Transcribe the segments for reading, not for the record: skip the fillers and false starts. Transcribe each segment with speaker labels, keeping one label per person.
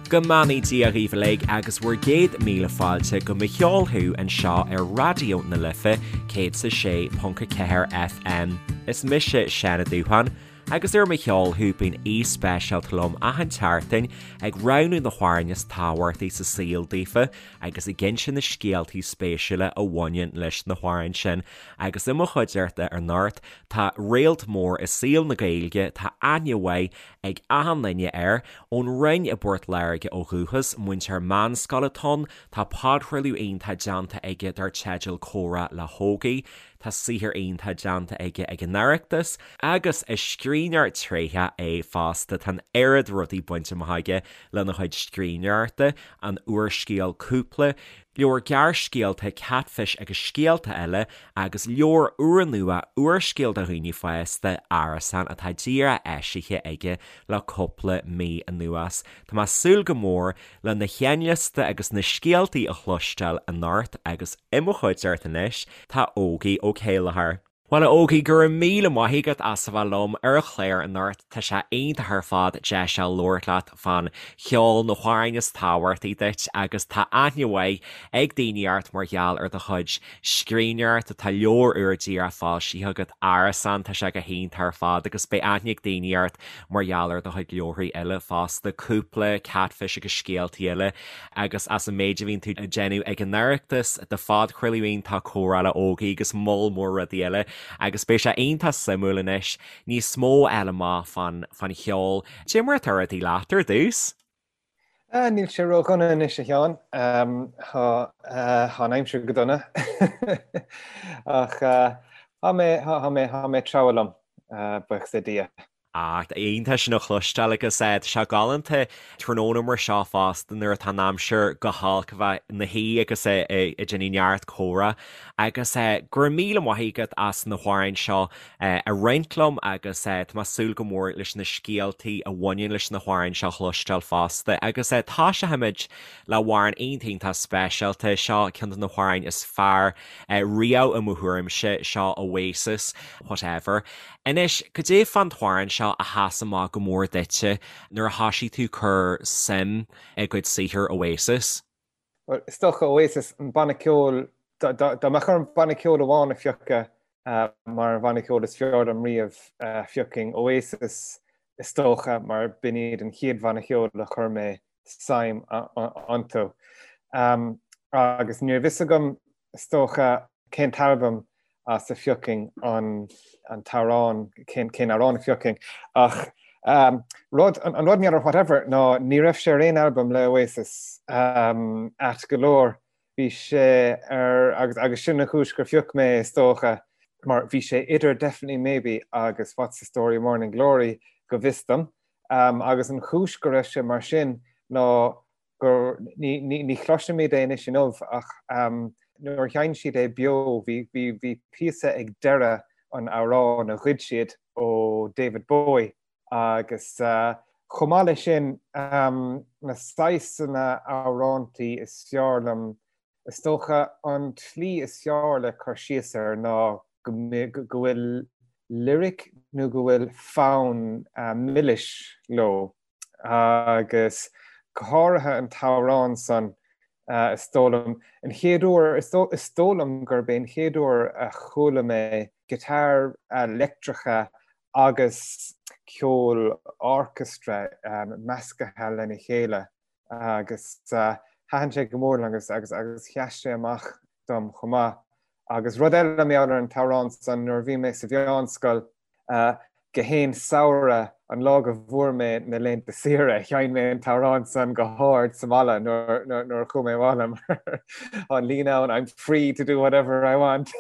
Speaker 1: Go mbeannaí Dia dhaoibh uilig agus bhur gcéad míle fáilte go Mo Cheol Thú anseo ar Raidió na Life 106.4 FM. Is mise Seán Ó Dúcháin agus ar Mo Cheol Thú bíonn aoi speisialta liom achan tseachtain ag roghnú na hamhráin is tábhachtaí sa saol daofa agus ag inse na scéaltaí spéisiúla a bhaineann leis na hamhráin sin. Agus i mo chuideachta anocht tá réalt mór i saol na Gaeilge, tá aithne mhaith ag achan duine air. Ón Rinn i bPort Láirge ó dhúchas, múinteoir meánscoile atá ann, tá podchraoladh iontach déanta aige dar teideal Comhrá le hÓgie, tá saothar iontach déanta aige ag an Oireachtas, agus is scríbhneoir tréitheach é fosta. Tá an oiread rudaí bainte amach aige lena chuid scríbhneoireachta, an úrscéal Cúpla, leabhar gearrscéalta Katfish agus Scéalta Eile agus leabhar úrnua úrscéal do dhaoine fásta, Árasán, atá díreach eisithe aige le cúpla mí anuas. Tá mé ag súil go mór lena sheinnliosta agus na scéaltaí a chloisteáil anocht agus i mo chuideachta anois tá Ógie Ó Céilleachair. Bhuel, a Ógie, go raibh míle maith agat as a bheith liom ar an chlár anocht. Tá sé iontach ar fad deis a labhairt leat fán cheol, na hamhráin is tábhachtaí duit agus tá aithne mhaith ag daoine ort mar gheall ar do chuid scríbhneoireachta. Tá leabhar úr díreach foilsithe agat, Árasán, tá sé go hiontach ar fad agus beidh aithne ag daoine ort mar gheall ar do chuid leabharthaí eile fosta, Cúpla, Katfish agus Scéaltaí Eile. Agus as an méid a bhíonn tú ag déanamh ag an Oireachtas, do phodchraoladh iontach Comhrá le Ógie agus moll mór rudaí eile agus beidh sé iontach suimiúil anois níos mó a fháil amach fán fán cheol. Cad é mar atá rudaí leat ar dtús?
Speaker 2: Níl sé ródhona anois a Sheáin. Tá an aimsir go dona ach tá mé tá mé tá mé ag treabhadh liom, buíochas le Dia.
Speaker 1: Ach iontach sin a chloisteáil agus tá sé galánta tráthnóna mar seo fosta nuair atá an aimsir go holc a bheith ina shuí agus ag déanamh neart comhrá agus go raibh míle maith agat as na hamhráin seo a roinnt liom agus tá mé ag súil go mór leis na scéaltaí a bhaineann leis na hamhráin seo a chloisteáil fosta agus toiseochaimid le hamhrán iontach iontach speisialta seo ceann de na hamhráin is fearr riamh i mo thuairimse seo Oasis Whatever. Anois, cad é fán t-amhrán seo a sheas amach go mór duitse nuair a thoisigh tú cur suim i gcuid saothair Oasis?
Speaker 2: Bhuel, is dócha Oasis, an banna ceoil, dá mbeadh orm banna ceoil amháin a phiocadh mar an bhanna ceoil is fearr liom riamh, phiocfainn Oasis is dócha mar b'in iad an chéad bhanna ceoil a chuir mé suim iontu. Agus ní raibh fhios agam, is dócha, cén t-albam as a phiocfainn an t-amhrán, cén amhrán a phiocfainn. Ach rud, an rud mar gheall ar Whatever ná ní raibh sé ar aon albam le Oasis ait go leor. Bhí sé ar, agus agus sin an chúis gur phioc mé is dócha, mar bhí sé idir Definitely Maybe agus What's the Story Morning Glory go bhfios dom. Agus an chúis go raibh sé mar sin ná gur, ní chloisimid é anois inniu ach nuair a sheinn siad é beo bhí píosa ag deireadh an amhráin a ghoid siad ó David Bowie agus chomh maith leis sin na saghsanna amhrántaí is fearr liom, is dócha an tslí is fearr le cur síos air ná go bhfuil lyric nó go bhfuil fonn milis leo. agus go háirithe an t-amhrán san, is dóigh liom, an chéad uair, is dóigh liom gurb é an chéad uair a chuala mé guitar leictreacha agus ceol orchestra meascaithe lena chéile agus thaitin sé go mór liom agus agus agus sheas sé amach dom chomh maith. Agus rud eile mar gheall ar an t-amhrán san, nuair a bhí mé sa mheánscoil, Gach aon samhradh, an lá go bhfuair mé na laethanta saoire, sheinn mé an t-amhrán san go hard sa mbaile nuair a chuaigh mé abhaile mar tá an líne ann, I'm free to do whatever I want.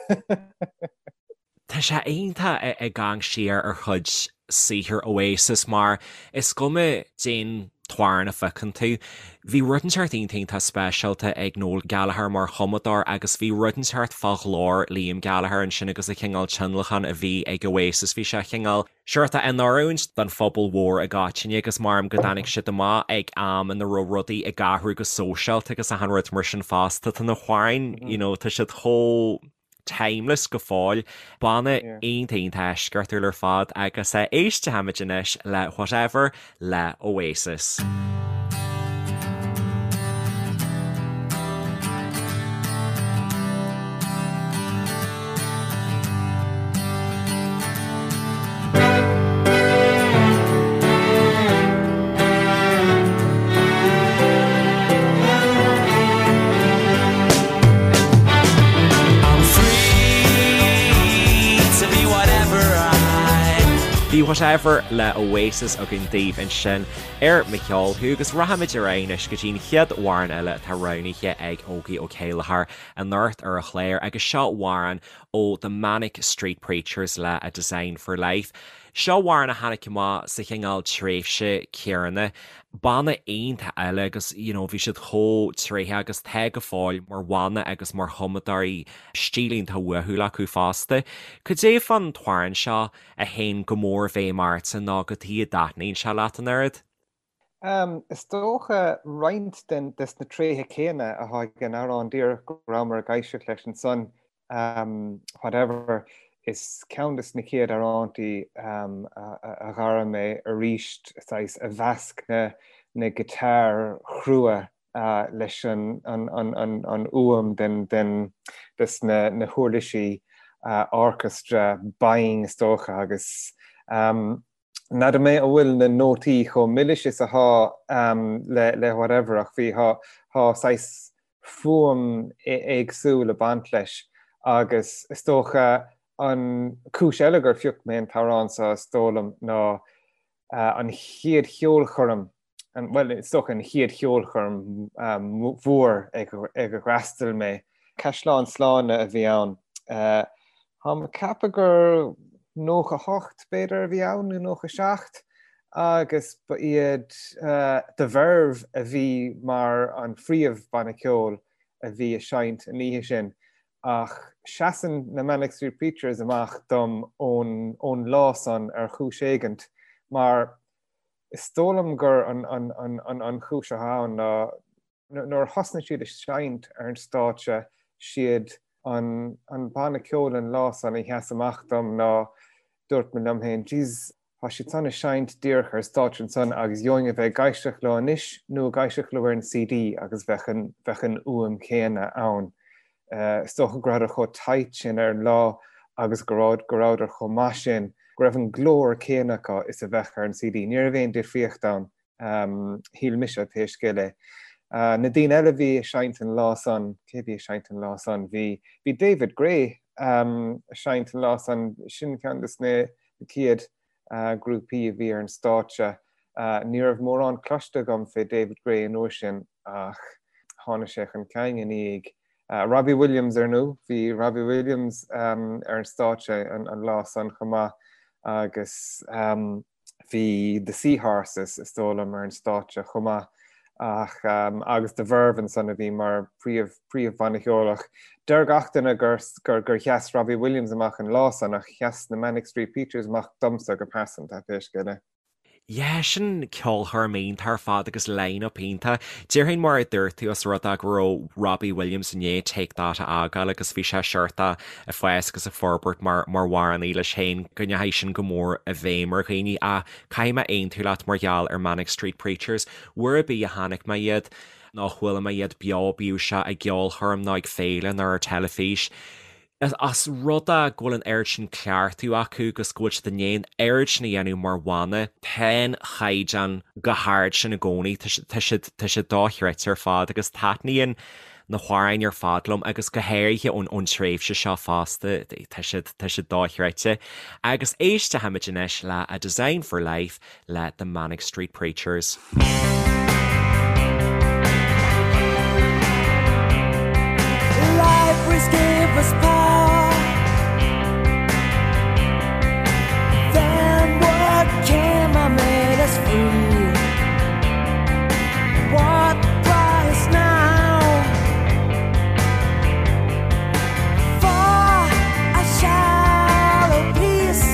Speaker 1: Tá sé iontach ag amharc siar ar chuid saothar Oasis mar is cuma cén t-amhrán a phiocann tú. Bhí rud inteacht iontach iontach speisialta ag Noel Gallagher mar chumadóir agus bhí rud inteacht fá ghlór Liam Gallagher ansin agus an cineál tionlacan a bhí ag Oasis, bhí sé cineál seort in oiriúint don phobal mhór i gcoitinne agus maram go dtáinig siad amach ag am ina raibh rudaí ag athrú go sóisialta agus achan rud mar sin fosta. Tá na hamhráin, you know, tá siad chomh. timeless go fóill. Banna iontach iontach eisceachtúil ar fad agus éistfimid anois le Whatever le Oasis. Bhí Whatever le Oasis againn daoibh ansin ar Mo Cheol Thú agus rachaimid ar aghaidh anois go dtí an chéad amhrán eile atá roghnaithe ag Ógie Ó Céilleachair anocht ar an chlár agus seo amhrán ó The Manic Street Preachers le A Design for Life. Seo amhrán a tháinig amach sa chineál tréimhse céanna. Banna iontach eile agus you know bhí siad chomh tréitheach agus tá go fóill mar bhanna agus mar chumadóirí, stíl iontach uathúil acu fosta. Cad é fán t-amhrán seo a théann go mór i bhfeidhm ortsa nó cad chuige a dtaitníonn sé leat an oiread?
Speaker 2: Is dócha roinnt den des na tréithe céanna atá ag an amhrán díreach go rabhamar ag éisteacht leis ansan, Whatever, is ceann des na chéad amhrántaí a dh'airigh mé arís, saghas, a mheasc na na guitar chrua leis an fhuaim den des na huirlisí orchestra binn is dócha agus N'fheadar mé an bhfuil na nótaí chomh milis is athá le Whatever ach bhí, thá saghas fuaim éagsúil ag baint leis agus is dócha an cúis eile gur phioc mé an t-amhrán seo is dóigh liom ná an chéad cheolchoirm bhuel, is dócha an chéad cheolchoirm mhór ag ar fhreastail mé. Caisleán Sláine a bhí ann. Táim ag ceapadh gur 98 b'fhéidir a bhí ann, nó 97, agus ba iad The Verve a bhí mar an phríomh-bhanna ceoil a bhí ag seinnt an oíche sin. Ach seasann na Manic Street Preachers amach dom ón lá san ar chúis éigint, mar Is dóigh liom gur an chúis atá ann ná nuair a thosnaigh siad ag seinnt ar an stáitse, siad an banna ceoil an lá san a sheas amach dom ná dúirt mé liom féin, jeez, tá siad san ag seinnt díreach ar stáitse ansan agus gheobhainn a bheith ag éisteacht leo anois nó ag éisteacht leo ar an CD agus bheadh an bheadh an fhuaim chéanna ann. Is dócha go rabhadar chomh tight sin ar an lá agus go rabhadar chomh maith sin go raibh an glór céanna acu is a bheadh ar an CD. Ní raibh aon difríocht ann, shíl mise, pé scéal é. Na daoine eile a bhí ag seinnt an lá san, cé a bhí ag seinnt an lá san? Bhí bhí David Gray ag seinnt an lá san, sin ceann de na chéad grúpaí a bhí ar an stáitse. Ní raibh mórán cloiste agam fé David Gray an uair sin ach tháinig sé chun cinn i ndiaidh Robbie Williams ar ndóigh. Bhí Robbie Williams ar an stáitse an lá san chomh maith agus bhí The Sea Horses is dóigh liom ar an stáitse chomh maith ach agus The Verve ansan a bhí mar príomh príomhbhanna ceoil ach deir gach duine gur gur sheas Robbie Williams amach an lá san ach sheas na Manic Street Preachers amach domsa go pearsanta pé scéal é.
Speaker 1: Yeah, sin ceolchoirm iontach ar fad agus line-up iontach. Déarfainn mar a dúirt tú os rud é go raibh Robbie Williams i ndiaidh Take That a fhágáil agus bhí sé seort ag fás agus ag forbairt mar mar amhránaí leis féin go ndeachaigh sin go mór i bhfeidhm ar dhaoine ach caithfidh mé aontú leat mar gheall ar Manic Street Preachers. Uair ar bith a chonaic mé iad nó a chuala mé iad beo bíodh sé i gceolchoirm nó ag féile nó ar teilifís, Os rud é go bhfuil an oiread sin cleachtadh acu agus go bhfuil siad i ndiaidh an oiread sin a dhéanamh mar bhanna, tá an caighdeán chomh hard sin i gcónaí, tá siad, tá siad dochreidte ar fad agus taitníonn na hamhráin ar fad liom agus go háirithe ón, ón tréimhse seo fosta, tá siad, tá siad dochreidte. Agus éistfimid anois le A Design for Life le The Manic Street Preachers. Libraries gave us power. Then what came and made us free? What price now for a shallow piece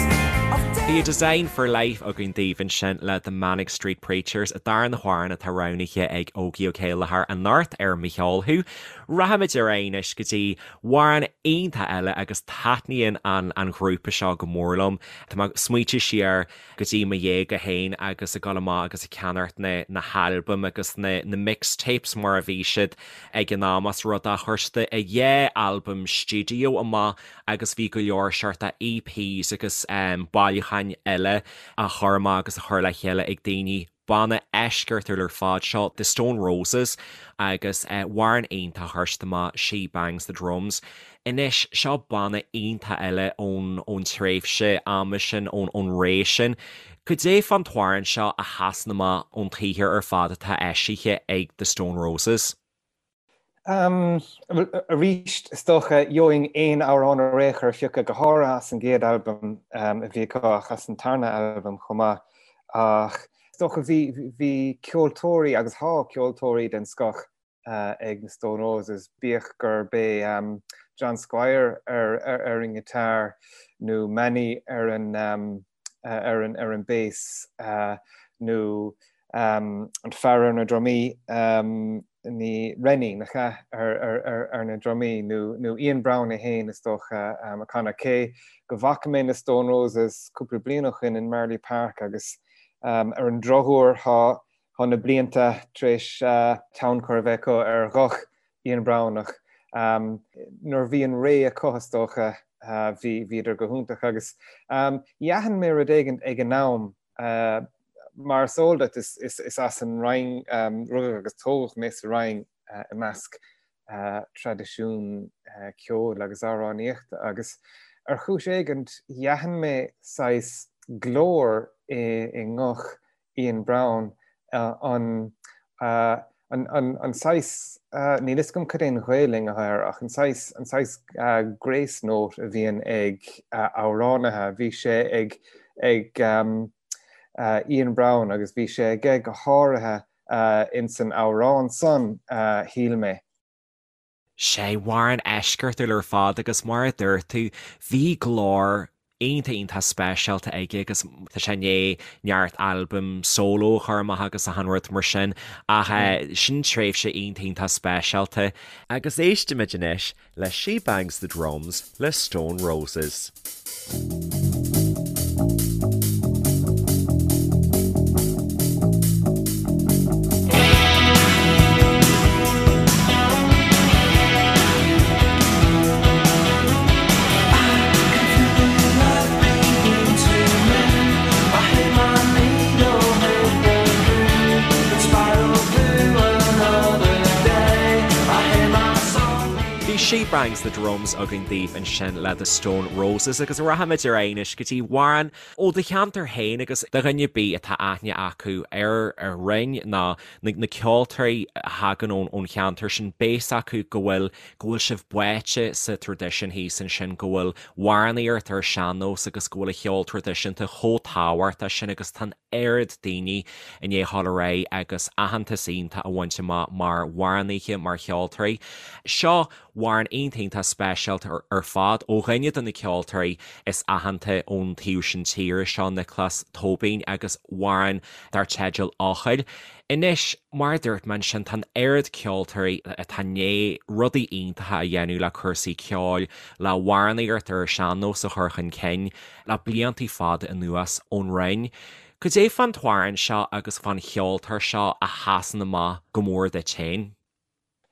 Speaker 1: of Bhí A Design for Life againn daoibh ansin le The Manic Street Preachers, an darna hamhrán atá roghnaithe ag Ógie Ó Céilleachair anocht ar Mo Cheol Thú. Rachaimid ar aghaidh anois go dtí amhrán iontach eile agus taitníonn an an ghrúpa seo go mór liom. Tá mé ag smaointiú siar go dtí mo dhéaga féin agus ag dul amach agus ag ceannacht na na halbaim agus na na mixtapes mar a bhí siad ag an am os rud é chuir siad a dhá albam stiúideo amach agus bhí go leor seort EPs agus bailiúcháin eile á chur amach agus á chur le chéile ag daoine. Banna eisceachtúil ar fad seo, The Stone Roses, agus amhrán iontach a chuir siad amach, She Bangs the Drums. Anois, seo banna iontach eile ón ón tréimhse ama sin, ón ón ré sin. Cad é fán t-amhrán seo a sheasann amach ón tsaothar ar fad atá eisithe ag The Stone Roses?
Speaker 2: Arís, is dócha, gheobhainn aon amhrán ar aon chor a phiocadh, go háirithe as an gcéad albam a bhí acu ach as an tarna albam chomh maith. Ach is dócha bhí, bhí ceoltóirí agus thá ceoltóirí den scoth ag na Stone Roses, bíodh gurb é John Squire ar ar an ngiotár nó Mani ar an ar an ar an bass nó an fear ar na drumaí, ní Rennie, nach ea, ar na drumaí, nó Ian Brown é féin is dócha, ag canadh. Cé go bhfaca mé na Stone Roses cúpla bliain ó shin in Marlay Park agus ar an drochuair thá na blianta tar éis tionchar a bheith acu ar ghuth Ian Brown ach nuair a bhí an ré acu is dócha bhí bhíodar go hiontach agus d'aithin mé rud éigin ag an am Mar is eol duit, is as an Rinn, rugadh agus tógadh mé sa Rinn i measc traidisiún ceoil agus amhránaíochta agus ar chúis éigint d'aithin mé saghas glór i nguth Ian Brown, an An saghas, níl fhios agam cad é an Ghaelainn atá air, ach an saghas, an saghas grace note a bhíonn ag amhránaithe, bhí sé ag, ag Ian Brown agus bhí sé aige go háirithe ins an amhrán san, shíl mé.
Speaker 1: Sé amhrán eisceachtúil ar fad agus mar a dúirt tú, bhí glór iontach iontach speisialta aige agus tá sé i ndiaidh neart albam solo a chur amach agus achan rud mar sin ach sin tréimhse iontach iontach speisialta. Agus éistimid anois le She Bangs the Drums le Stone Roses. Bhí She Bangs the Drums againn daoibh ansin le The Stone Roses agus rachaimid ar aghaidh anois go dtí amhrán ó do cheantar féin agus do dhuine ar bith atá aithne acu ar an Rinn nó na ceoltóirí a thagann ón cheantar sin, beidh a fhios acu go bhfuil, go bhfuil sibh báite sa traidisiún thíos ansin, go bhfuil amhránaíocht ar sean-nós agus go bhfuil an cheol traidisiúnta chomh tábhachtach sin agus tá an oiread daoine i ndiaidh dhul ar aghaidh agus aitheantas iontach a bhaint amach mar amhránaithe, mar cheoltóirí. Seo amhrán iontach iontach speisialta ar fad ó dhuine de na ceoltóirí is aitheanta ón taobh sin tíre, seo Nioclás Tóibín agus amhrán dar teideal Eochaill. Anois, mar a dúirt mé ansin, tá an oiread ceoltóirí atá i ndiaidh rudaí iontacha a dhéanamh le cúrsaí ceoil, le hamhránaíocht ar an sean-nós a chur chun cinn le bliantaí fada anuas ón Rinn. Cad é fán t-amhrán seo agus fán cheoltóir seo a sheasann amach go mór duit féin?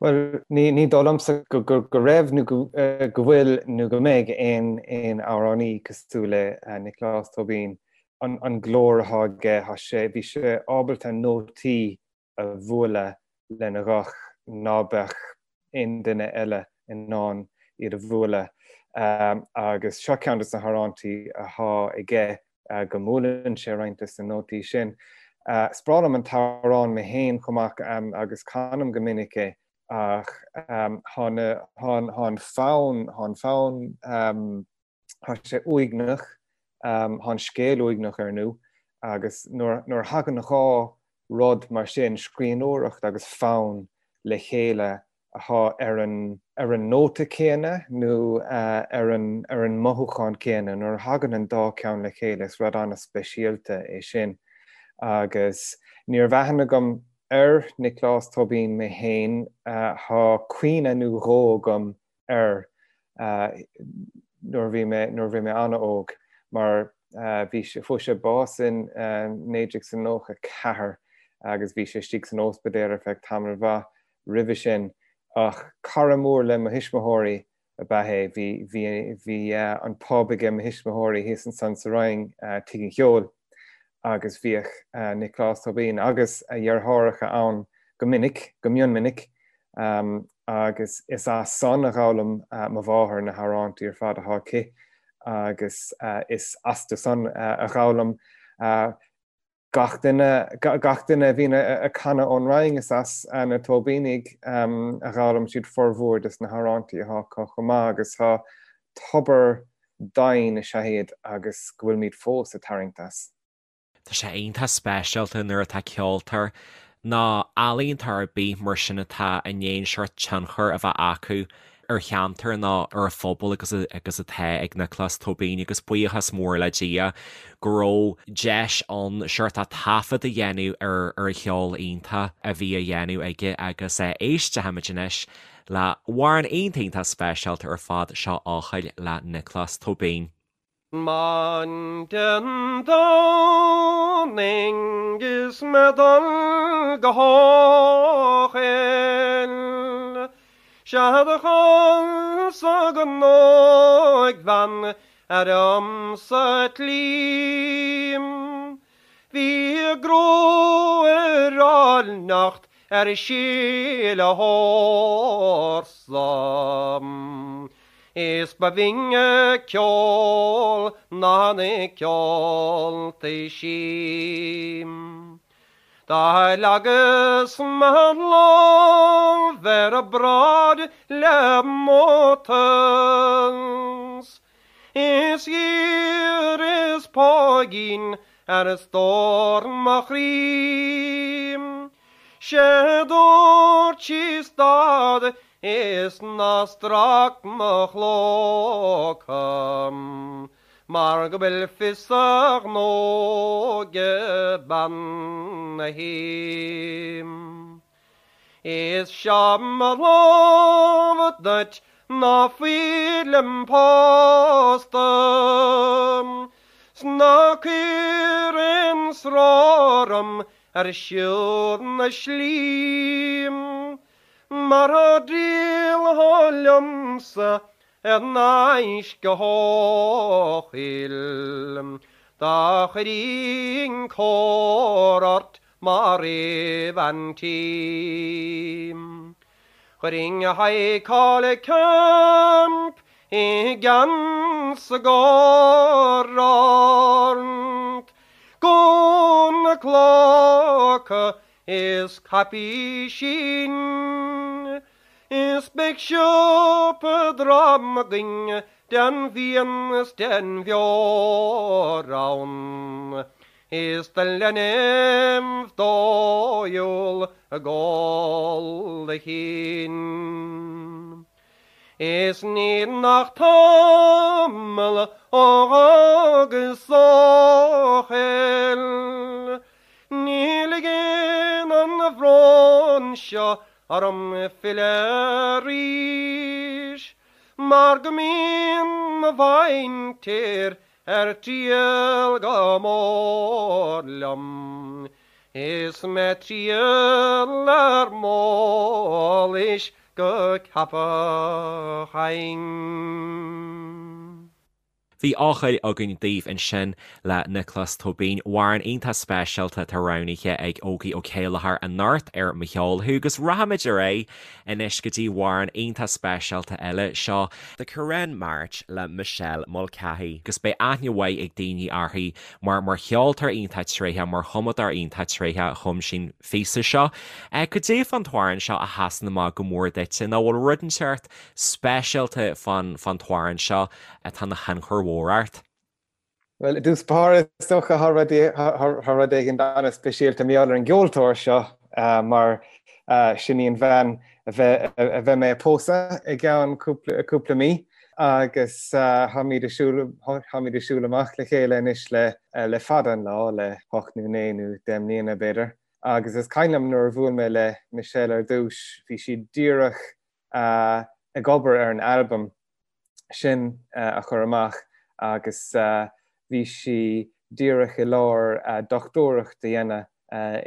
Speaker 2: Bhuel, ní dóigh liomsa go raibh nó go bhfuil nó go mbeidh aon aon amhránaí cosúil le Nioclás Tóibín. An glór atá aige, tá sé, bhí sé ábalta nótaí a bhualadh lena ghuth ná beadh aon duine eile in ann iad a bhualadh. Agus seo ceann de na hamhráintí atá aige go mbuaileann sé roinnt de na nótaí sin. Is breá liom an t-amhrán mé féin chomh maith agus canaim go minic é ach tá an fonn, tá an fonn, tá sé uaigneach, tá an scéal uaigneach ar ndú agus nuair a thagann dhá rud mar sin, scríbhneoireacht agus fonn le chéile atá ar an ar an nóta céanna nó ar an ar an mothúchán céanna. Nuair a thagann an dá ceann le chéile is rud an-speisialta é sin. Agus ní raibh aithne agam ar Nioclás Tóibín mé féin, tá cuimhne nó dhó agam air nuair a bhí mé nuair a bhí mé an-óg mar bhí sé fuair sé bás in 1994 agus bhí sé istigh san ospidéal ar feadh tamall mhaith roimhe sin ach cara mór le mo thuismitheoirí ab ea é. Bhí bhí bhí an pub aige mo thuismitheoirí thíos ansan sa Rinn, Tigh an Cheoil. agus bhíodh Nioclás Tóibín agus a dheartháireacha ann go minic, go mion minic, agus is as san a dh'fhoghlaim mo mháthair na hamhrántaí ar fad atá aici agus is astu san a dh'fhoghlaim gach duine, gach duine a bhíonn ag canadh ón Rinn, is as na Tóibínigh a dh'fhoghlaim siad formhór des na hamhrántaí atá acu chomh maith agus tá tobar doimhin is ea iad agus go bhfuilimid fós ag tarraingt as.
Speaker 1: Tá sé iontach speisialta nuair atá ceoltóir nó ealaíontóir ar bith mar sin atá i ndiaidh an seort tionchar a bheith acu ar cheantar nó ar an phobal agus agus atá ag Nioclás Tóibín agus buíochas mór le Dia go raibh deis ann seort taifead a dhéanamh ar ar an cheol iontach a bhí á dhéanamh aige agus éistfimid anois le hamhrán iontach iontach speisialta ar fad seo Eochaill le Nioclás Tóibín.
Speaker 3: Maidin Domhnaigh is mé dul go hEochaill, Sea do chualasa an óigbhean ar liom sa tslí. Bhí a gruaig ar áilneacht ar síle hórsa. Is ba bhinne ceol ná na ceoltaí sí. Do leagas mo lámh ar a bráid le mórtas. Is dh'iarras póigín ar stór mo chroí. 'Sé dúirt sí stad is ná strac mo chlóca mar go bhfuil fios a ghnó ag bean a' tí. Is seo mo lámh duit ná fuilim pósta 's ná cuir aon stró orm ar siúl na slí mar dá dtriallfá liomsa ar n-ais go hEochaill do chuirfinn cóir ort mar aoibh an tí. Chuirfinn High Collie Camp i gceann 's i gcóir ort, gúna clóca is caipísín, is beidh siopa drom againn den bhfíon is den bheoir ann. Is do leinbh dóighiúil ag ól a chinn. Is níl ach tamall ó dh'fhágas Eochaill, Ní ligeann an bhrón seo orm filleadh arís, Mar go mbíonn mo mhuintir Ar triall go mór liom is mé triall ar m'eolais go Ceapach Fhinn.
Speaker 1: Bhí Eochaill againn daoibh ansin le Nioclás Tóibín, amhrán iontach speisialta atá roghnaithe ag Ógie Ó Céilleachair anocht ar Mo Cheol Thú agus rachaimid ar aghaidh anois go dtí amhrán iontach speisialta eile, seo The Currane March le Michelle Mulcahy agus beidh aithne mhaith ag daoine uirthi mar mar cheoltóir iontach tréitheach, mar chumadóir iontach tréitheach a chum sí an phíosa seo. Cad é fán t-amhrán seo a sheasann amach go mór duitse nó bhfuil rud inteacht speisialta fán fán t-amhrán seo atá ina thionchar mhór ort?
Speaker 2: Bhuel, i dtús báire, is dócha, tá rud éigin an-speisialta mar gheall ar an gceoltóir seo, mar sin í an bhean a bheidh mé a pósadh i gceann cúpla mí, agus táimid ag siúl amach le chéile anois le fada an lá, le hocht nó naoi nó deich mbliana, b'fhéidir. Agus is cuimhin liom nuair a bhuail mé le Michelle ar dtús, bhí sí díreach ag obair ar an albam sin a chur amach agus bhí sí díreach i lár dochtúireacht a dhéanamh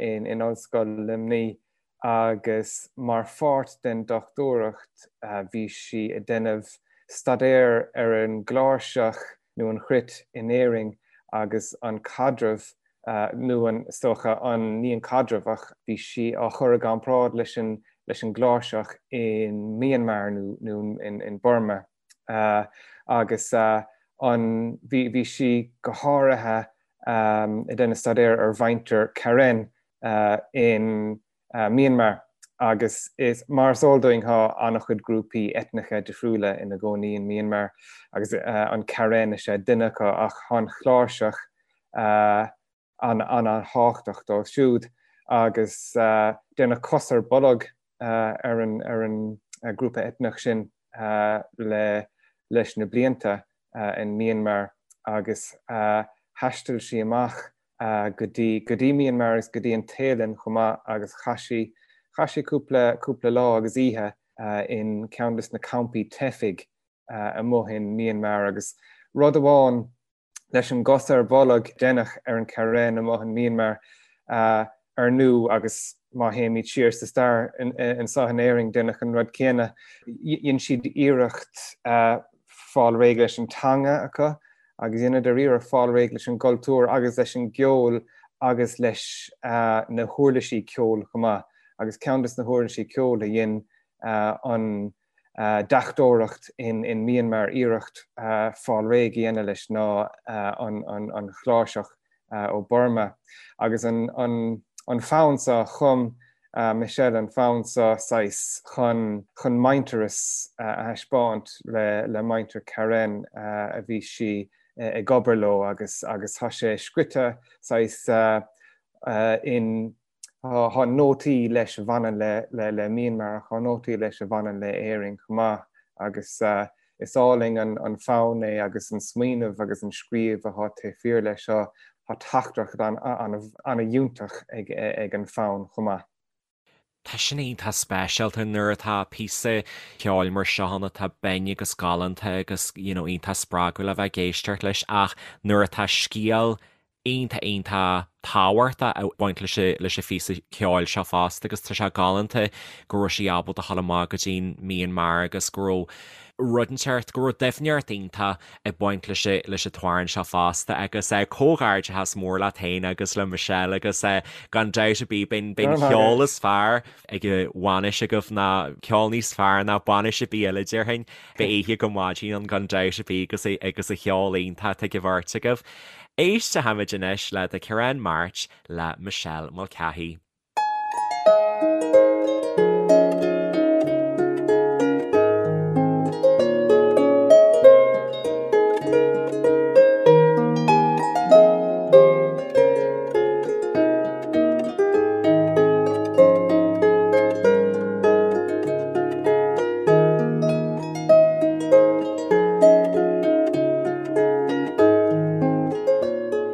Speaker 2: in Ollscoil Luimnigh agus mar pháirt den dochtúireacht bhí sí ag déanamh staidéar ar an gcláirseach nó an chruit in Éirinn agus an caidreamh. nó an, is dócha, an, ní an caidreamh ach bhí sí á chur i gcomparáid leis an, leis an gcláirseach in Myanmar nó, nó in, in Burma. Agus an, bhí, bhí sí go háirithe ag déanamh staidéir ar mhuintir Karen in Myanmar agus is, mar is eol dúinn, tá an-chuid grúpaí eitneacha difriúla ina gcónaí in Myanmar agus an Karen is ea duine acu ach tá an chláirseach an-an-thábhachtach dóibh siúd agus déanadh cos ar bolg ar an ar an grúpa eitneach sin le leis na blianta in Myanmar agus thaistil sí amach go dtí go dtí Myanmar agus go dtí an Téalainn chomh maith agus chaith sí chaith sí cúpla cúpla lá agus oíche in ceann de na campaí teifigh amuigh in Myanmar agus rud amháin leis an gcos ar bolg a deineadh ar an Karen amuigh in Myanmar ar ndú agus má théimid siar sa stair anseo in Éirinn deineadh an rud céanna. Dhein siad iarracht fáil réidh leis an teanga acu agus dheineadar iarracht fáil réidh leis an gcultúr agus leis an gceol agus leis na huirlisí ceoil chomh maith agus ceann de na huirlisí ceoil a dhein an deachtóireacht in Myanmar iarracht fáil réidh a dhéanamh leis ná an chláirseach ó Burma. Agus an fonn seo, chum Michelle an fonn seo saghas chun chun muintearas a thaispeáint le le muintir Karen a bhí sí ag obair leo agus agus tá sé scrite saghas in Tá nótaí leis a bhaineann le Myanmar ach tá nótaí leis a bhaineann le Éirinn chomh maith agus is álainn an fonn é agus an smaoineamh agus an scríobh atá taobh thiar leis seo. Tá teachtaireacht an-fhiúntach ag an fonn chomh maith.
Speaker 1: Tá sin iontach speisialta nuair atá píosa ceoil mar seo ann atá binn agus galánta agus you know iontach spreagúil a bheith ag éisteacht leis ach nuair atá scéal iontach iontach tábhachtach ag baint leis an leis an phíosa ceoil seo fosta agus tá sé galánta go raibh sí ábalta a dhul amach go dtí an Myanmar agus go raibh rud inteacht, go raibh doimhneacht iontach ag baint leis an leis an t-amhrán seo fosta agus comhghairdeachas mór leat féin agus le Michelle agus gan dabht ar bith beidh beidh an ceol is fearr ag an bhainis agaibh ná ceol níos fearr ná bainis ar bith eile déarfainn. Beidh oíche go maidin ann gan dabht ar bith agus agus an cheol iontach atá ag an bheirt agaibh. Éistfimid anois le The Karen March le Michelle Mulcahy.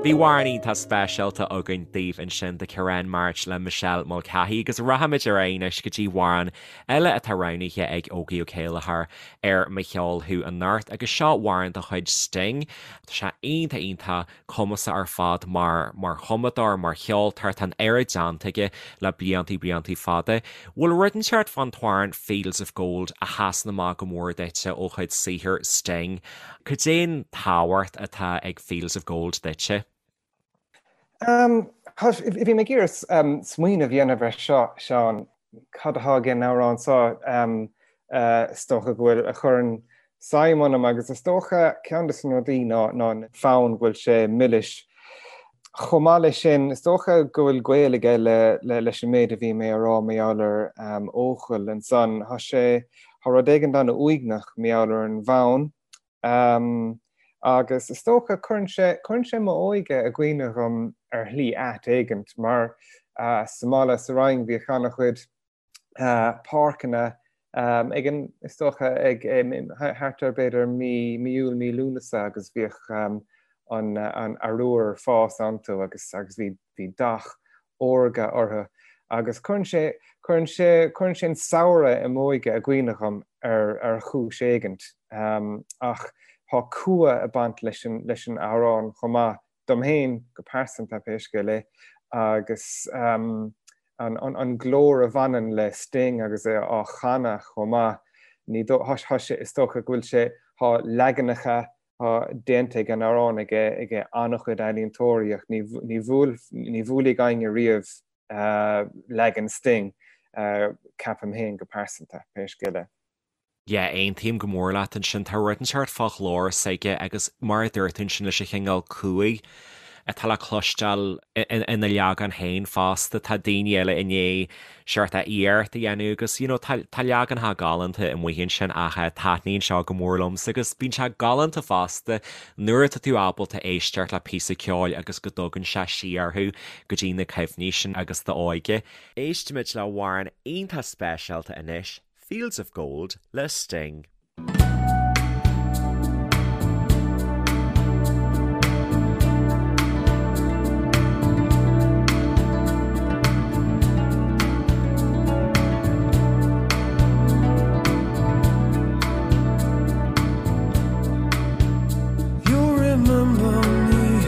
Speaker 1: Bhí amhrán iontach speisialta againn daoibh ansin The Karen March le Michelle Mulcahy agus rachaimid ar aghaidh anois go dtí amhrán eile atá roghnaithe ag Ógie Ó Céilleachair ar Mo Cheol Thú anocht agus seo amhrán de chuid Sting. Tá sé iontach iontach cumasach ar fad mar mar chumadóir, mar cheoltóir, tá an oiread déanta aige le bliantaí bliantaí fada. Bhfuil rud inteacht fán t-amhrán Fields of Gold a sheasann amach go mór duitse ó chuid saothair Sting? Cad é an tábhacht atá ag Fields of Gold duitse?
Speaker 2: Bhí mé ag iarraidh smaoineamh a dhéanamh ar seo, Seán. Cad atá ag an amhrán seo? Is dócha go bhfuil, a chuireann suim ionam agus is dócha ceann de na rudaí ná an fonn go bhfuil sé milis. Chomh maith leis sin, is dócha go bhfuil gaol aige le leis an méid a bhí mé a rá mar gheall ar Eochaill ansan. Tá sé, tá rud éigin an-uaigneach mar gheall ar an bhfonn. Agus is dócha, cuireann sé, cuireann sé m'óige i gcuimhne dhom ar shlí ait éigint, mar sa mbaile sa Rinn bhíodh an-chuid páirceanna ag an, is dócha, ag thart ar b'fhéidir mí, mí Iúil, mí Lúnasa agus bhíodh an, an arúr ag fás iontu agus, agus bhí, bhí dath órga orthu agus cuireann sé, cuireann sé, cuireann sé an samhradh i m'óige i gcuimhne dhom ar, ar chúis éigint. Ach tá cumha ag baint leis an, leis an amhrán chomh maith, dom féin go pearsanta pé scéal é, agus an, an, an glór a bhaineann le Sting agus é á chanadh chomh maith, ní dó, tá sé, is dócha go bhfuil sé, tá leaganacha. Tá déanta ag an amhrán ag an-chuid ealaíontóirí ach ní bhuailfidh éinne riamh leagan Sting, ceapaim féin go pearsanta, pé scéal é.
Speaker 1: Yeah, aontaím go mór leat ansin. Tá rud inteacht fá ghlór s'aige agus mar a dúirt tú ansin leis an chineál cumhaidh atá le cloisteáil ina leagan féin fosta. Tá daoine eile i ndiaidh seort iarracht a dhéanamh agus you know tá tá leaganacha galánta amuigh ansin ach taitníonn seo go mór liomsa agus bíonn sé galánta fosta nuair atá tú ábalta éisteacht le píosa ceoil agus go dtugann sé siar thú go dtí na cuimhní sin agus d'óige. Éistfimid le hamhrán iontach speisialta anois, Fields of Gold le Sting.
Speaker 4: You'll remember me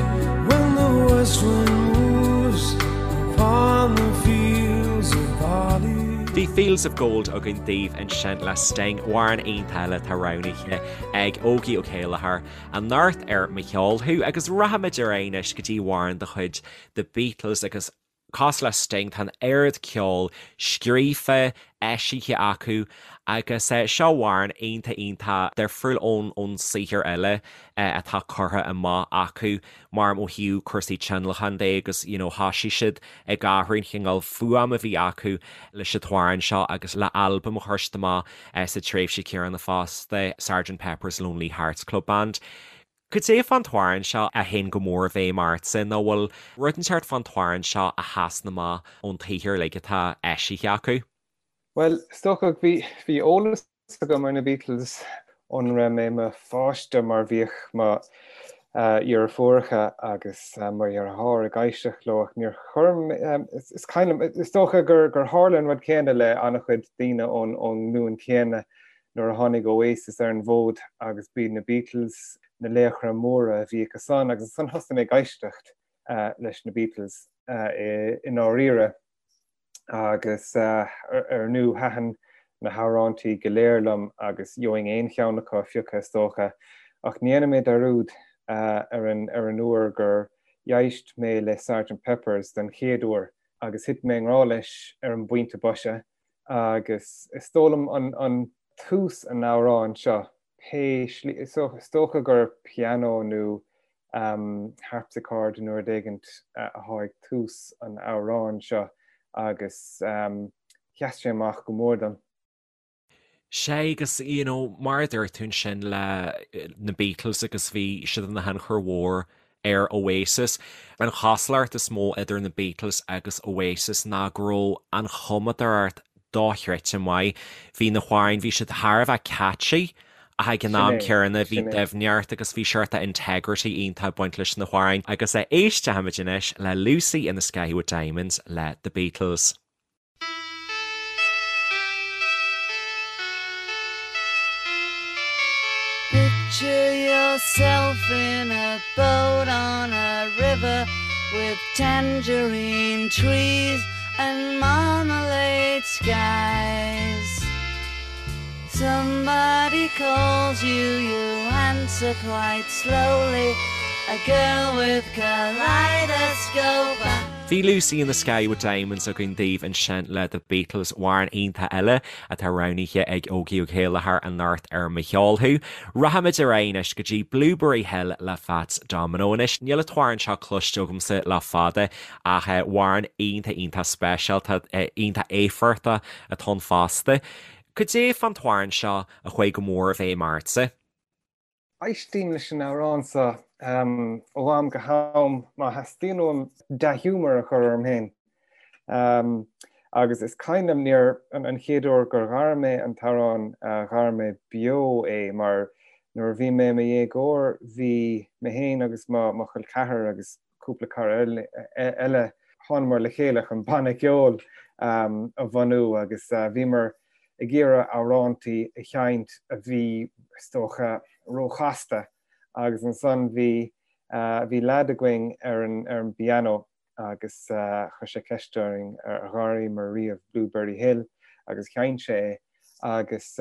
Speaker 4: when the west wind moves upon the fields of barley.
Speaker 1: Bhí Fields of Gold againn daoibh ansin le Sting, amhrán iontach eile atá roghnaithe ag Ógie Ó Céilleachair anocht ar Mo Cheol Thú agus rachaimid ar aghaidh anois go dtí amhrán de chuid The Beatles agus cosúil le Sting tá an oiread ceoil scríofa, eisithe acu agus seo amhrán iontach iontach difriúil ón ón saothar eile atá curtha amach acu mar ó thaobh cúrsaí tionlacain de agus you know thosaigh siad ag athrú an chineál fuaim a bhí acu leis an t-amhrán seo agus le albam a chuir siad amach sa tréimhse chéanna fosta, Sergeant Pepper's Lonely Hearts Club Band. Cad é fán t-amhrán seo a théann go mór i bhfeidhm ortsa nó bhfuil rud inteacht fán t-amhrán seo a sheasann amach ón tsaothar uilig atá eisithe acu?
Speaker 2: Bhuel, is dócha bhí eolas agam ar na Beatles ón raibh mé i mo pháiste mar bhíodh mo dheirfiúracha agus mo dheartháir ag éisteacht leo ach níor chuir mé, is cuimhin liom, is dócha gur tharla an rud céanna le an-chuid daoine ón nglúin chéanna nuair a tháinig Oasis ar an bhfód agus b'iad na Beatles na laochra móra a bhí acusan agus ansan thosaigh mé ag éisteacht leis na Beatles i ndáiríre agus ar ndú thaitin na hamhráintí go léir liom agus gheobhainn aon cheann acu a phiocadh is dócha ach ní dhéanfaidh mé dearúd ar an ar an uair gur éist mé le Sergeant Pepper's den chéad uair agus thit mé i ngrá leis ar an bpointe boise Agus is dóigh liom an tús an amhráin seo, pé slí, is dócha gur pianó nó harpsichord nó rud éigint atá ag tús an amhráin seo agus sheas sé amach go mór dom.
Speaker 1: Sea, agus you know, mar a dúirt tú ansin le na Beatles agus bhí siad ina thionchar mhór ar Oasis. An chosúlacht is mó idir na Beatles agus Oasis ná go raibh an chumadóireacht dochreidte maith. Bhí na hamhráin, bhí siad thar a bheith catchy ach ag an am céanna bhí doimhneacht agus bhí seort integrity iontach ag baint leis na hamhráin. Agus éistfimid anois le Lucy in the Sky with Diamonds le The Beatles.
Speaker 4: Picture yourself in a boat on a river with tangerine trees and marmalade skies. Somebody calls you, you answer quite slowly. A girl with kaleidoscope eyes.
Speaker 1: Bhí Lucy in the Sky with Diamonds againn daoibh ansin le The Beatles, amhrán iontach eile atá roghnaithe ag Ógie Ó Céilleachair anocht ar Mo Cheol Thú. Rachaimid ar aghaidh anois go dtí Blueberry Hill le Fats Domino. Anois, níl an t-amhrán seo cloiste agamsa le fada ach amhrán iontach iontach speisialta, iontach éifeachtach atá ann fosta. Cad é fán t-amhrán seo a chuaigh go mór i bhfeidhm ortsa?
Speaker 2: Éistím leis an amhrán seo ó am go ham má theastaíonn uaim dea-ghiúmar a chur orm féin. Agus is cuimhin liom nuair an chéad uair gur ghair mé an t-amhrán, ghair mé beo é mar nuair a bhí mé i mo dhéagóir bhí mé féin agus mo chol ceathar agus cúpla cara eile, thánamar le chéile chun banna ceoil a bhunú agus bhíomar ag iarraidh amhrántaí a sheinnt a bhí, is dócha, róchasta agus ansan bhí, bhí leaid againn ar an, ar an bpianó agus chuir sé ceist orainn ar ghaireamar riamh Blueberry Hill agus sheinn sé é agus.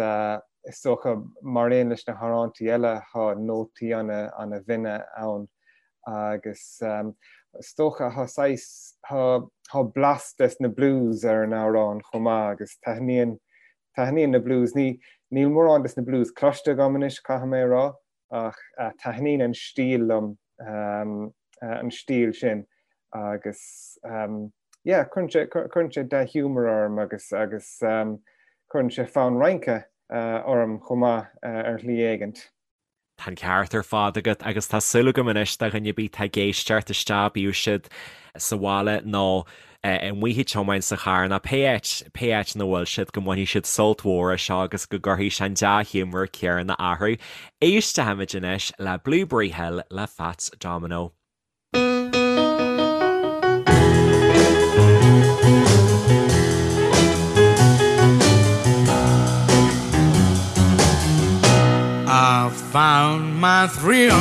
Speaker 2: Is dócha, mar aon leis na hamhráintí eile, tá nótaí ana-bhinne ann agus is dócha tá saghas, tá blas des na blues ar an amhrán chomh maith agus taitníonn, taitníonn na blues. Ní, níl mórán des na blues cloiste agam anois, caithfidh mé a rá, ach taitníonn an stíl liom, an stíl sin agus yeah, cuireann sé, cuireann sé dea-ghiúmar orm agus, agus cuireann sé fonn rince orm chomh maith ar shlí éigint.
Speaker 1: Tá an ceart ar fad agat agus tá súil agam anois do dhuine ar bith atá ag éisteacht isteach, bíodh siad sa bhaile nó amuigh ag tiomáint sa charr nó pé áit, pé áit ina bhfuil siad, go mbainfidh siad sult mhór as seo agus go gcuirfidh sé an dea-ghiúmar céanna orthu. Éistfimid anois le Blueberry Hill le Fats Domino.
Speaker 4: I found my thrill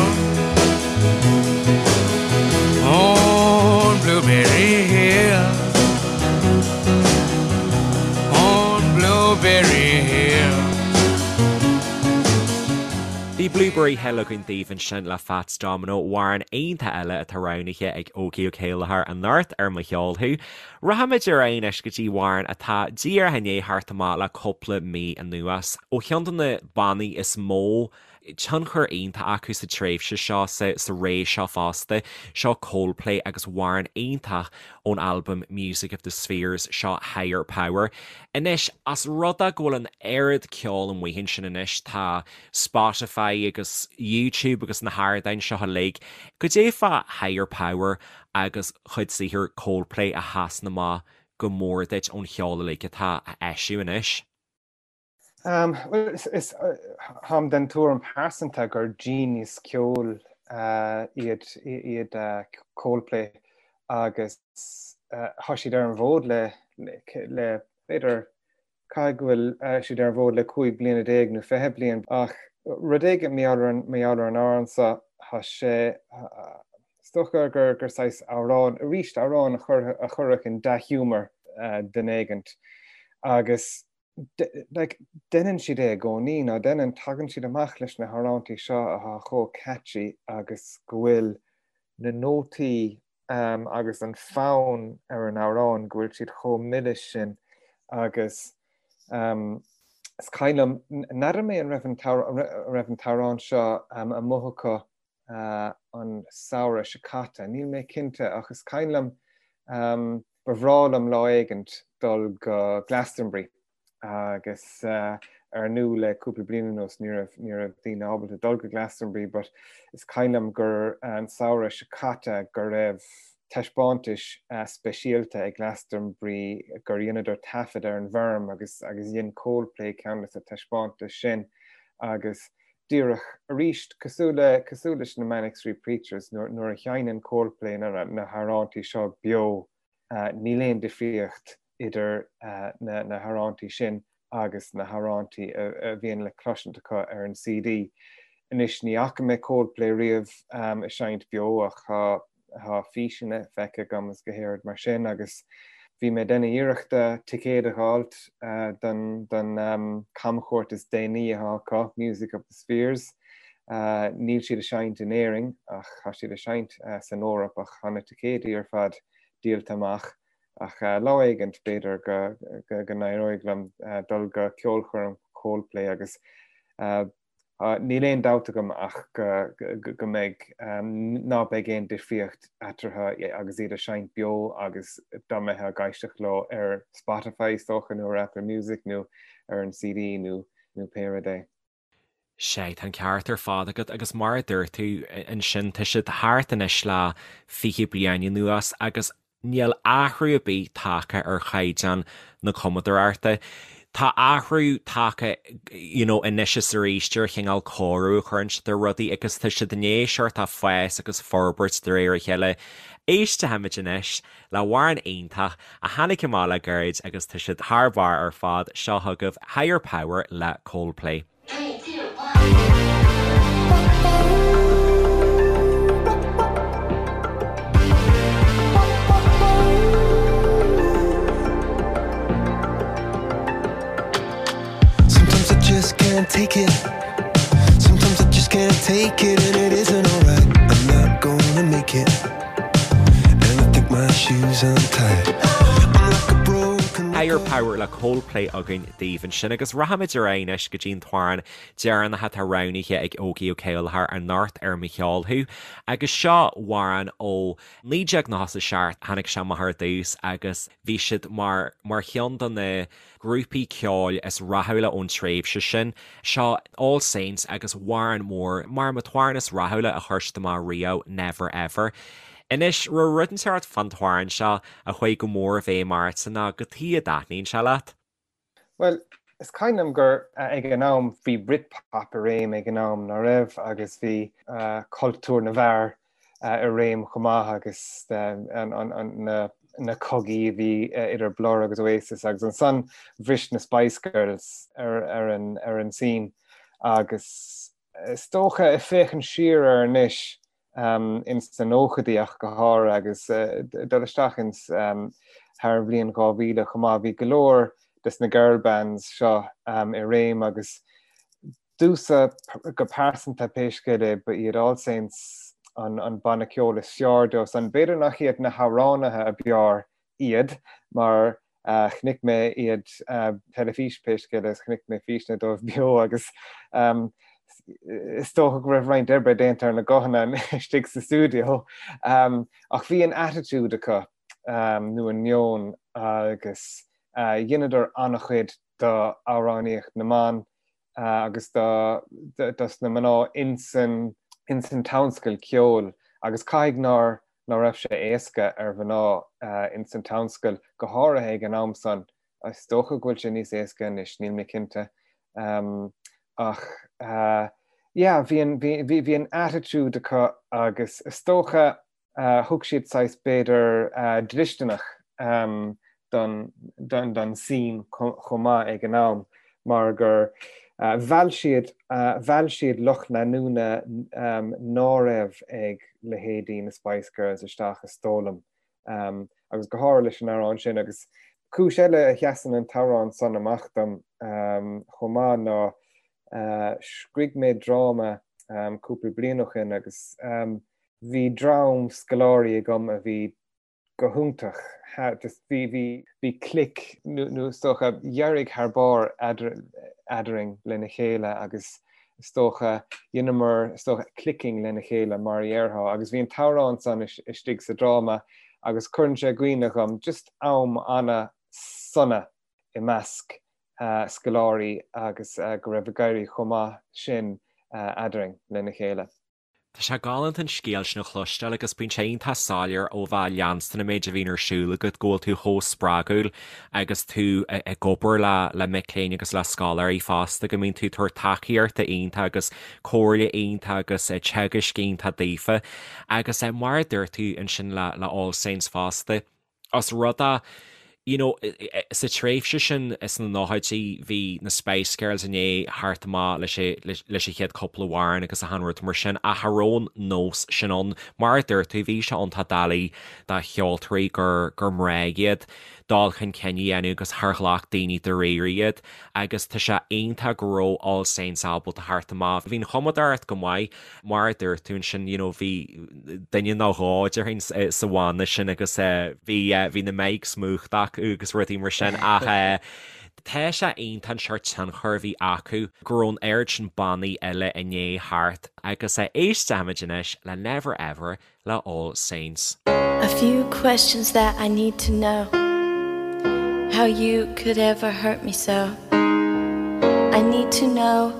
Speaker 4: on Blueberry Hill On Blueberry Hill
Speaker 1: Bhí Blueberry Hill againn daoibh ansin le Fats Domino, amhrán iontach eile atá roghnaithe ag Ógie Ó Céilleachair anocht ar Mo Cheol Thú. Rachaimid ar aghaidh anois go dtí amhrán atá díreach i ndiaidh theacht amach le cúpla mí anuas ó cheann de na bannaí is mó tionchar iontach acu sa tréimhse seo, sa ré seo fosta. Seo Coldplay agus amhrán iontach ón albam Music of the Spheres, seo Higher Power. Anois, as rud é go bhfuil an oiread ceoil amuigh ansin anois, tá Spotify agus YouTube agus na hardáin seo uilig, goidé fá Higher Power agus cuid saothair Coldplay a sheasann amach go mór duit ón cheol uilig atá á eisiú anois?
Speaker 2: Bhuel, is táim den tuairim pearsanta gur genius ceoil iad iad Coldplay agus tá siad ar an bhfód le le b'fhéidir caithfidh go bhfuil siad ar an bhfód le 15 bliana nó 20 bliain ach rud éigin mar gheall ar an mar gheall ar an amhrán seo tá sé is dócha gur gur saghas amhrán arís amhrán a chur a chuirfeadh in dea-ghiúmar duine éigint agus like, deineann siad é i gcónaí, ná deineann, tagann siad amach leis na hamhráintí seo atá chomh catchy agus go bhfuil na nótaí um, agus an fonn ar an amhrán go bhfuil siad chomh milis sin agus um, is cuimhin liom, n'fheadar mé an raibh an raibh an t-amhrán seo um, amuigh acu uh, an samhradh seo caite, níl mé cinnte ach is cuimhin liom um, Ba bhreá liom lá éigint dul go Glastonbury agus ar ndú le cúpla bliain anuas ní raibh ní raibh daoine ábalta dul go Glastonbury but is cuimhin liom gur an samhradh seo caite go raibh taispeántais speisialta ag Glastonbury gur dheineadar taifead ar an bhfeirm agus agus dhein Coldplay ceann de na taispeántais sin agus díreach arís cosúil le cosúil leis na Manic Street Preachers nuair nuair a sheinneann Coldplay na na hamhráintí seo beo níl aon difríocht idir na na hamhráintí sin agus na hamhráintí a a bhíonn le cloisint acu ar an CD. Anois ní fhaca mé Coldplay riamh ag seinnt beo ach tá Tá físeanna feicthe agam is go háirid mar sin agus bhí mé ag déanamh iarrachta ticéad a dh'fháilt don don camchuairt is déanaí atá acu, Music of the Spheres. Níl siad ag seinnt in Éirinn ach tá siad ag seinnt san Eoraip ach tá na ticéidí ar fad díolta amach. Ach lá éigint b'fhéidir go go n-éireoidh liom dul go ceolchoirm Coldplay agus Níl aon dabht agam ach go mbeidh, ná beidh aon difríocht eatarthu agus iad ag seinnt beo agus dá mbeifeá ag éisteacht leo ar Spotify is dócha nó ar Apple Music nó ar an CD nó nó pé rud é.
Speaker 1: Sea, tá an ceart ar fad agat agus mar a dúirt tú ansin tá siad thart anois le 20 bliain anuas agus Níl athrú ar bith tagtha ar chaighdeán na cumadóireachta. Tá athrú tagtha you know anois is arís ar chineál cóiriú a chuireann siad ar rudaí agus tá siad i ndiaidh sórt of fás agus forbairt de réir a chéile. Éistfimid anois le hamhrán iontach a tháinig amach le gairid agus tá siad thar barr ar fad, seo chugaibh Higher Power le Coldplay.
Speaker 4: Sometimes I just can't take take it and it isn't alright. I'm not gonna make it. And I think my shoes untied. I'm like a broken
Speaker 1: Higher Power le Coldplay againn daoibh ansin agus rachaimid ar aghaidh anois go dtí an t-amhrán deireanach atá roghnaithe ag Ógie Ó Céilleachair anocht ar Mo Cheol Thú agus seo amhrán ó 1997, tháinig sé amach ar dtús agus bhí siad mar mar cheann de na grúpaí ceoil is rathúla ón tréimhse sin. Seo All Saints agus amhrán mór, mar an t-amhrán is rathúla a chuir siad amach riamh, Never Ever. Anois, raibh rud inteacht fán t-amhrán seo a chuaigh go mór i bhfeidhm ortsa nó cad chuige a dtaitníonn sé leat?
Speaker 2: Bhuel, is cuimhin liom gur ag an am bhí Britpop i réim ag an am, ná raibh, agus bhí cultúr na bhfear i réim chomh maith agus na cogaí a bhí idir Blur agus Oasis agus ansan bhris na Spice Girls ar an scene agus is dócha ag féachaint siar air anois ins na nóchaidí ach go háirithe agus dul isteach ins thar an bhliain 2000 chomh maith bhí go leor des na girl bands seo i réim agus Domhsa go pearsanta, pé scéal é, ba iad All Saints an banna ceoil is fearr dóibh san. B'fhéidir nach iad na hamhránaithe ab fhearr iad, mar chonaic mé iad teilifís, pé scéal é, chonaic mé físeanna dóibh beo agus is dócha go raibh roinnt oibre déanta ar na guthanna istigh sa stiúideo. Ach bhí an attitude acu, nó an meon, agus dheineadar an-chuid do amhránaíocht na mban agus do dos na mná insan insan tionscal ceoil agus caithfidh nár ná raibh sé éasca ar mhná insan tionscal go háirithe ag an am san. Is dócha go bhfuil sé níos éasca anois, níl mé cinnte. Ach yeah, bhí an bhí bhí an attitude acu agus is dócha Thug siad saghas b'fhéidir dlisteanach don scene chomh maith ag an am mar gur mheall siad mheall siad lucht leanúna ná raibh ag leithéidí na Spice Girls isteach is dóigh liom agus go háirithe leis an amhrán sin agus cúis eile a sheasann an t-amhrán san amach dom chomh maith ná scrígh mé dráma cúpla bliain ó shin agus Bhí dream scoláirí agam a bhí go hiontach, just bhí, bhí, bhí click nó is dócha d'éirigh thar barr eadrainn lena chéile agus is dócha dheineamar is dócha clicking lena chéile mar a dhéarfá agus bhí an t-amhrán san istigh sa dráma agus cuireann sé i gcuimhne dhom just am ana-sona i measc scoláirí agus go raibh ag éirí chomh maith sin eadrainn lena chéile.
Speaker 1: Tá sé galánta an scéal sin a chloisteáil agus bíonn sé iontach soiléir ó bheith ag leanstan an méid a bhíonn ar siúl agat go bhfuil tú chomh spreagúil agus tú ag obair le le mic léinn agus le scoláirí fosta, go mbíonn tú ag tabhairt tacaíochta iontach agus comhairle iontach agus teagaisc iontach daofa. Agus mar a dúirt tú ansin le le All Saints fosta, Os rud é, you know, sa tréimhse sin sna nóchaidí bhí na Spice Girls i ndiaidh theacht amach leis leis an chéad cúpla amhrán agus achan rud mar sin ach cha raibh an nós sin ann. Mar a dúirt tú, bhí sé iontach doiligh do cheoltóirí gur gur mná iad dul chun cinn a dhéanamh agus char ghlac daoine dáiríre iad agus tá sé iontach go raibh All Saints ábalta theacht amach. Bhí an chumadóireacht go maith Mar a dúirt tú ansin, you know, bhí duine nó dhó, déarfainn, sa bhanna sin agus bhí, bhí na mics múchta acu agus rudaí mar sin ach tá sé iontach an seort tionchar a bhí acu, go raibh an oiread sin bannaí eile i ndiaidh theacht agus éistfimid anois le Never Ever le All Saints.
Speaker 5: A few questions that I need to know How you could ever hurt me so I need to know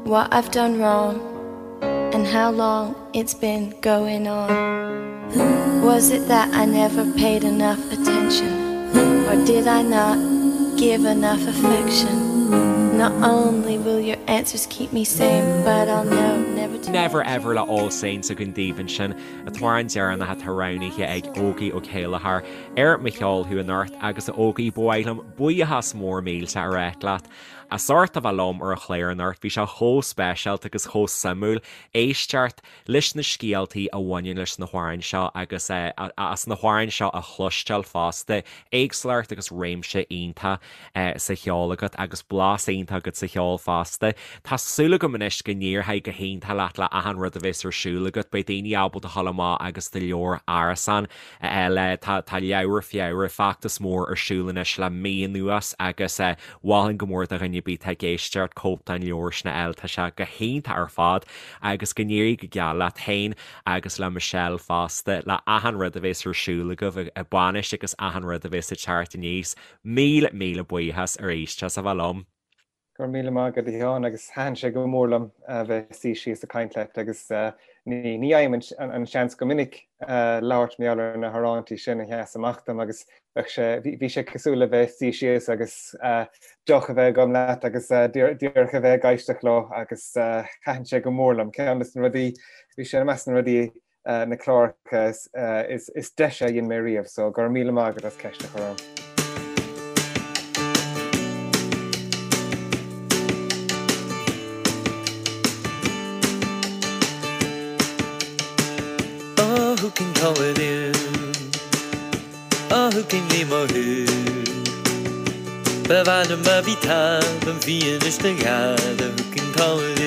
Speaker 5: what I've done wrong And how long it's been going on Was it that I never paid enough attention Or did I not give enough affection Not only will your answers keep me sane But I'll know never to
Speaker 1: Never Ever le All Saints againn daoibh ansin, an t-amhrán deireanach atá roghnaithe ag Ógie Ó Céilleachair ar Mo Cheol Thú anocht agus a Ógie, ba mhaith liom buíochas mór mílte a ráit leat. As ucht a bheith liom ar an chlár anocht, bhí sé chomh speisialta agus chomh suimiúil éisteacht leis na scéaltaí a bhaineann leis na hamhráin seo agus as na hamhráin seo a chloisteáil fosta. Éagsúlacht agus réimse iontach sa cheol agat agus blas iontach agat sa cheol fosta. Tá súil agam anois go n-éireoidh go hiontach leat le achan rud a bheas ar siúl agat. Beidh daoine ábalta a dhul amach agus do leabhar Árasán a fháil. Tá Leabhar Feabhra, feachtas mór ar siúl anois le mí anuas agus mholfainn go mór do dhuine ar bith atá ag éisteacht cóip den leabhar sin a fháil. Tá sé go hiontach ar fad agus go n-éirí go geal leat féin agus le Michelle fosta le achan rud a bheas ar siúl agaibh ag bainis agus achan rud a bheas ag teacht aníos. Míle, míle buíochas arís as a bheith liom.
Speaker 2: Go raibh míle maith agat a Sheáin agus thaitin sé go mór liom a bheith ag suí síos ag caint leat agus ní fhaighim an seans go minic labhairt mar gheall ar na hamhráintí sin a sheas amach dom agus bheadh sé, bhí sé cosúil le bheith ag suí síos agus deoch a bheith agam leat agus díreach a bheith ag éisteacht leo agus thaitin sé go mór liom. Ceann de na rudaí, bhí sé i measc na rudaí na cláracha is deise a dhein mé riamh, so go raibh míle maith agat as ceist a chur orm.
Speaker 4: Oh, who can call it in? Oh, who can lí mo thu? Ba mhaith liom a bhí talamh bhí anois do gheala, who can call it in?